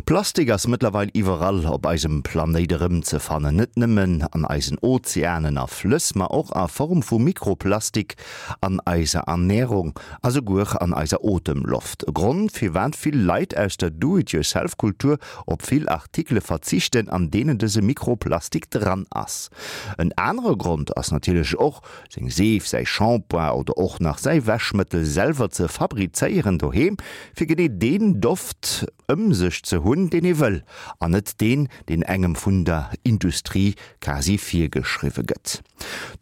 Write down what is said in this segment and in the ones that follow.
Plastik ass mëttlerweil iwwerall op eisem Planéit erëmzefannen. Net nëmmen an eisen Ozeanen a Flëss, ma och a Form vu Mikroplastik an eiser Ernärung a souguer an eiser Otemloft. E Grond, firwat vill Leit aus der Do-it-yourself-Kultur op vill Artikele verzichten, an deenen dëse Mikroplastik dran ass. En anere Grond ass natierlech och, seng Seef, säi Shampoing oder och nach säi Wäschmëttel selwer ze fabrizéieren doheem, fir genee deen Doft ëm sech ze hunn, deen ee wëll, an net deen, deen engem vun der Industrie quasi virgeschriwwe gëtt.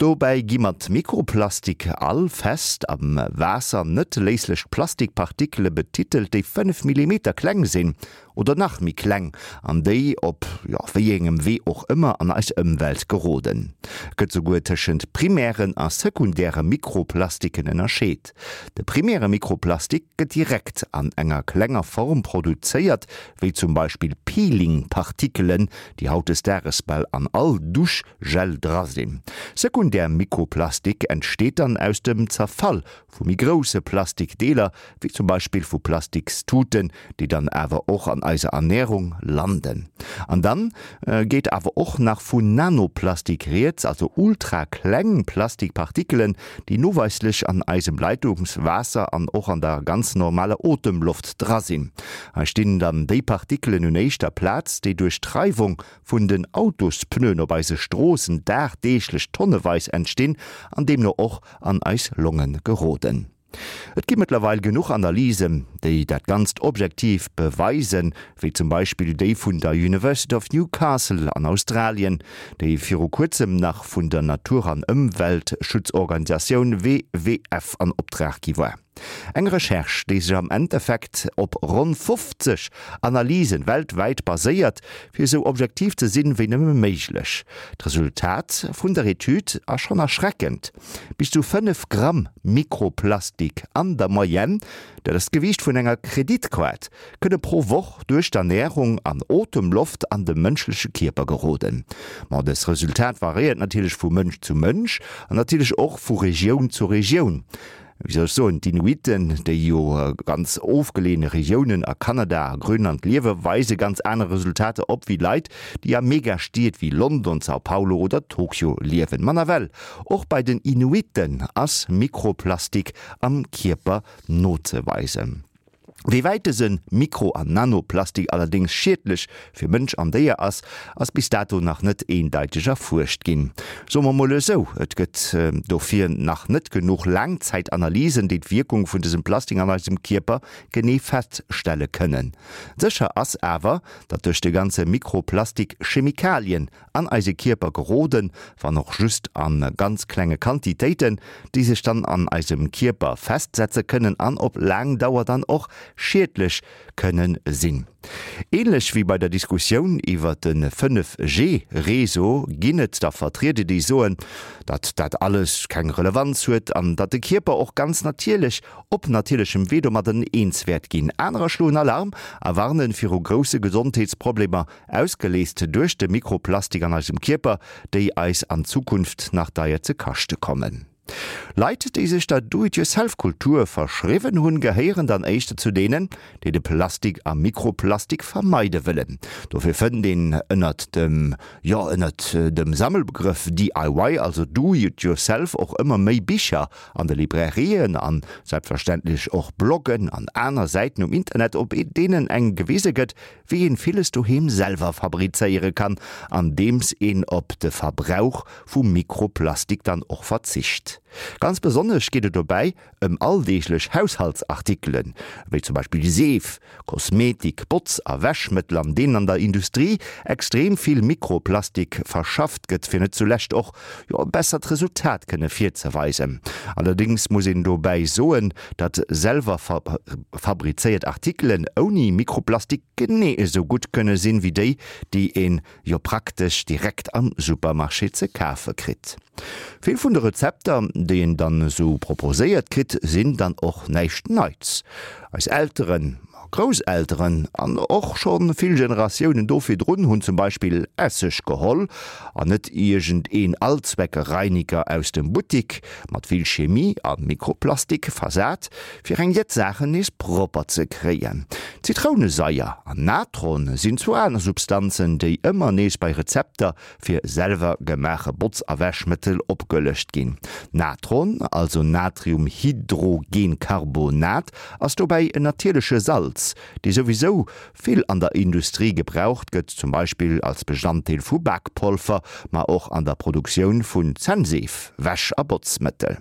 Dobäi gi mat Mikroplastik all fest am Waasser net léislech Plastikpartikele betitelt, déi 5 Millimeter kleng sinn oder nach méi kleng, an déi op, jo, wéi engem Wee och ëmmer an eis Ëmwelt geroden. Et gëtt souguer tëschent primären a sekundäre Mikroplastiken ënnerscheet. De primäre Mikroplastik gëtt direkt an enger klenger Form produzéiert, wéi zum Beispill Peeling-Partikelen, déi hautdesdaages bal an all Duschgel dra sinn. Sekundär Mikroplastik entsteet dann aus dem Zerfall vu méi grousse Plastikdeeler, wéi zum Beispill vu Plastikstuten, déi dann awer och an eiser Ernärung landen. An dann geet awer och nach vu Nanoplastik rieds, also ultrakleng Plastikpartikelen, déi noweislech an eisem Leitungswaasser an och an der ganz normaler Otemloft dra sinn. Hei stinn dann déi Partikelen un éischter Plaz, déi duerch d'Reiwung vun den Autospneuen op eise Stroossen dagdeeglech tonneweis entstinn an deemno och an eis Longe geroden. Et gi mëttlerweil genuch Analysen, déi dat Ganzt objektiv beweisen, wéi zum Beispill déi vun der University of Newcastle an Australien, déi viru kuerzem nach vun der Natur an Ëmweltschutzorganisatioun WWF an Optrag gi war. Eng Recherche, déi sech am Endeffekt op ronn 50 Analysen weltwäit baséiert, fir esou objektiv ze sinn, wéi nëmme méiglech. D'Resultat vun der Etüd ass schonn erschreckend, Bis zu 5 Gramm Mikroplastik an der Moyenne, dat ass d'Gewiicht vun enger Kreditkaart, kënne pro Woch duerch d'Ernärung an Otemloft an de mënschleche Kierper geroden. Ma dës Resultat variéiert natierlech vu Mënsch zu Mënsch an natierlech och vu Regioun zu Regioun. Wéi soll ech soen, d'Inuiten, déi jo ganz ofgeleeëne Regiounen a Kanada a Grönland liewe, weise ganz aner Resultater op wéi Leit, déi a Megastied wéi London, São Paulo oder Tokio liewen. Ma nawell, och bei den Inuiten ass Mikroplastik am Kierper nozeweisen. Wéi wäit dëse Mikro an Nanoplastik allerdéngs schiedlech fir Mënsch an Déier ass, ass bis dato nach net eendeiteg erfuerscht ginn. Soe mer mol esou, et gëtt dofir nach net genuch Laangzäitanalysen, déi d'Wierkung vun dësem Plastik an eisem Kierper genee feststelle kënnen. Sécher ass awer, datt duerch de ganze Mikroplastik Chemikalien an eise Kierper geroden, wann och just a ganz klenge Quantitéiten, déi sech dann an eisem Kierper festsetze kënnen an op laang Dauer dann och schiedlech kënne sinn. Ähnlech wéi bei der Diskussioun iwwer de 5G Réseau ginn et der Vertrieder, déi soen, datt dat alles keng Relevanz huet an datt de Kierper och ganz natierlech op natierlechem Wee domadden eens wäert ginn. Anerer schloen Alarm a warnen viru grousse Gesondheetsproblemer Ausgeleest duerch de Mikroplastik an eisem Kierper, déi eis an Zukunft nach deier ze kaschte kommen. Leit, déi sech der Do-it-yourself-Kultur verschriwwen hunn, gehéieren dann éischter zu deenen, déi de Plastik a Mikroplastik vermeide wëllen. Dofir fënnt een ënnert dem, jo, ënnert dem Sammelbegrëff DIY, also Do-it-yourself, och ëmmer méi Bicher an de Librairien an selbstverständlech och Bloggen an aner Säiten um Internet, op deenen engem gewise gëtt, wéi een villes doheem selwer fabrizéiere kann, andeems een op de Verbrauch vu Mikroplastik dann och verzicht. Ganz besonnesch geet et dobäi ëm alldeeglech Haushaltsartikelen, wéi zum Beispill Seef, Kosmetik, Botz a Wäschmëttel, an deenen an der Industrie extrem vill Mikroplastik verschafft gëtt, fir net zulescht och jo e bessert Resultat kënne virzeweisen. Allerdéngs muss een dobäi soen, datt selwer fabrizéiert Artikelen ouni Mikroplastik genee esou gutt kënne sinn, wéi déi, déi een jo praktesch direkt am Supermarché ze kafe kritt. Vill vun de Rezepter, déi een dann esou proposéiert kritt, sinn dann och näischt Neits. Eis Elteren a Grousselteren an och scho vill Generatiounen do virdrun hunn zum Beispill Esseg geholl an net iergend een Allzweckreiniger aus dem Buttik, mat vill Chemie a Mikroplastik versat, fir eng jett Saachen nees propper ze kréien. Zitrounesaier an Natron sinn zwou aner Substanzen, déi ëmmer nees bei Rezepter fir selwer gemaache Botz a Wäschmëttel opgelëscht ginn. Natron, also Natriumhydrogencarbonat, ass dobäi en natierleche Salz, dee souwisou vill an der Industrie gebraucht gëtt, zum Beispill als Bestanddeel vu Bakpolver, ma och an der Produktioun vun Zännseef, Wäsch a Botzmëttel.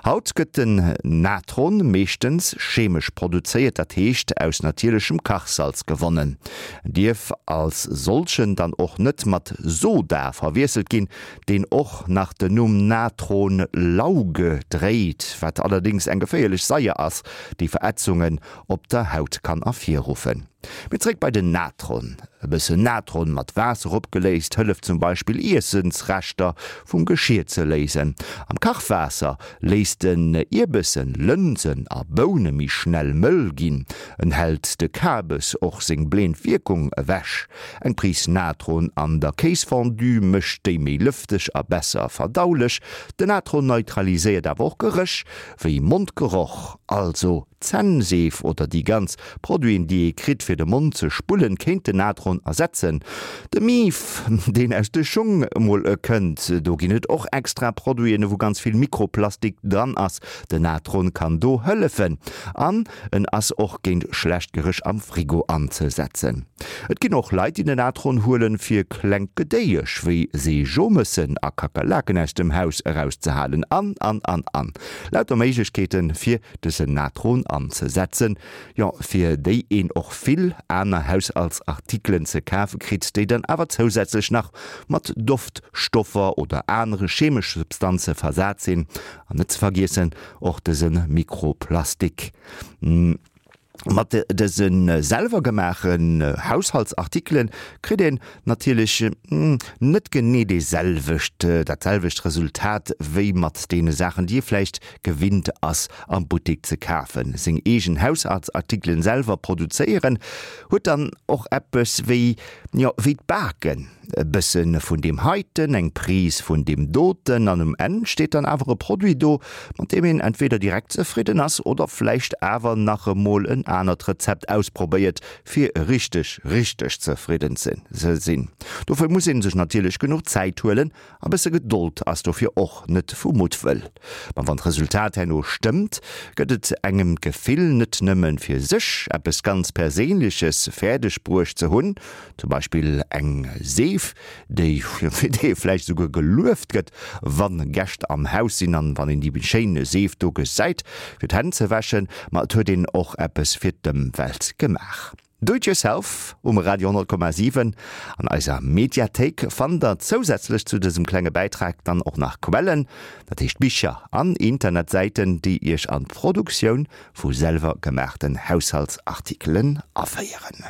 Haut gëtt den Natron meeschtens chemesch produzéiert, dat heescht aus natierlechem Kachsalz gewonnen. En dierf als solchen dann och net mat Soda verwiesselt ginn, deen och nach den Numm Natronlauge dréit, wat allerdéngs eng geféierlech Saier ass, déi Verätzungen op der Haut kann ervirruffen. Mee zréck bei den Natron. E bëssen Natron mat Waasser opgeléist hëlleft zum Beispill Iessensreschter vum Geschir ze léisen. Am Kachwaasser léisst en Ierbessen, Lënsen a Boune méi schnell mëll ginn. En hält de Kabes och seng bleend Wierkung ewech. Eng Pris Natron an der Kéisfondue mécht déi méi lëfteg a besser verdaulech. Den Natron neutraliséiert awer och Geréch wéi Mondgeroch, also Zännseef oder déi ganz Produiten déi ee kritt fir de Mond ze spullen kéint den Natron ersetzen. De Mief deen aus de Schung mol kënnt, do ginn et och extra Produiten wou ganz vill Mikroplastik dran ass. Den Natron kann do hëllefen an en ass och géint schlecht Geréch am Frigo anzesetzen. Et ginn och Leit déi den Natron huelen fir klengt Gedéiesch wéi Seejomëssen a Kakerlaken aus dem Haus erauszehalen an an an an lauter Méiglechkeeten fir dësen Natron anzesetzen, jo fir déi een och vill aner Haushaltsartikelen ze kafe kritt, déi dann awer zousätzlech nach mat Doftstoffer oder anere chemesche Substanze versat sinn, an net ze vergiessen och dëse Mikroplastik. Mat dëse selwer gemaachen Haushaltsartikelen kritt een natierlech net genee dee selwecht, dat selwecht Resultat wéi mat deene Saachen déi ee vläicht gewinnt ass am Buttek ze kafen. Seng eegen Haushaltsartikelen selwer produzéieren huet dann och eppes wéi, jo wéi d'Baken. E bësse vun deem heiten, eng Prise vun deem doten an um Enn steet dann awer e Produit do, mat deem een entweder direkt zefridden ass oder vläicht awer nach emol en anert Rezept ausprobéiert, fir richteg, richteg zefridden ze sinn. Dofir muss ee sech natierlech genuch Zäit huelen A bësse Gedold ass dofir och net vu Muttwëll. Ma wann d'Resultat herno stëmmt, gëtt et engem d'Gefill, net nëmme fir sech eppes ganz Perséinleches fäerdeg bruecht ze hunn, zum Beispill eng Seef, déi fir déi ee vläicht esouguer gelueft gëtt, wa Gäscht am Haus sinn an wann een déi schéin Seef do gesäit, fir d'Hänn ze wäschen, ma et huet een och eppes fir d'Ëmwelt gemaach. Do it yourself um Radio 10,7. An eiser Mediathéik fannt der zousätzlech zu dësem klenge Bäitrag dann och nach Quellen, dat heescht Bicher an Internetsäiten, déi iech an d'Produktioun vu selwer gemaachten Haushaltsartikelen aféieren.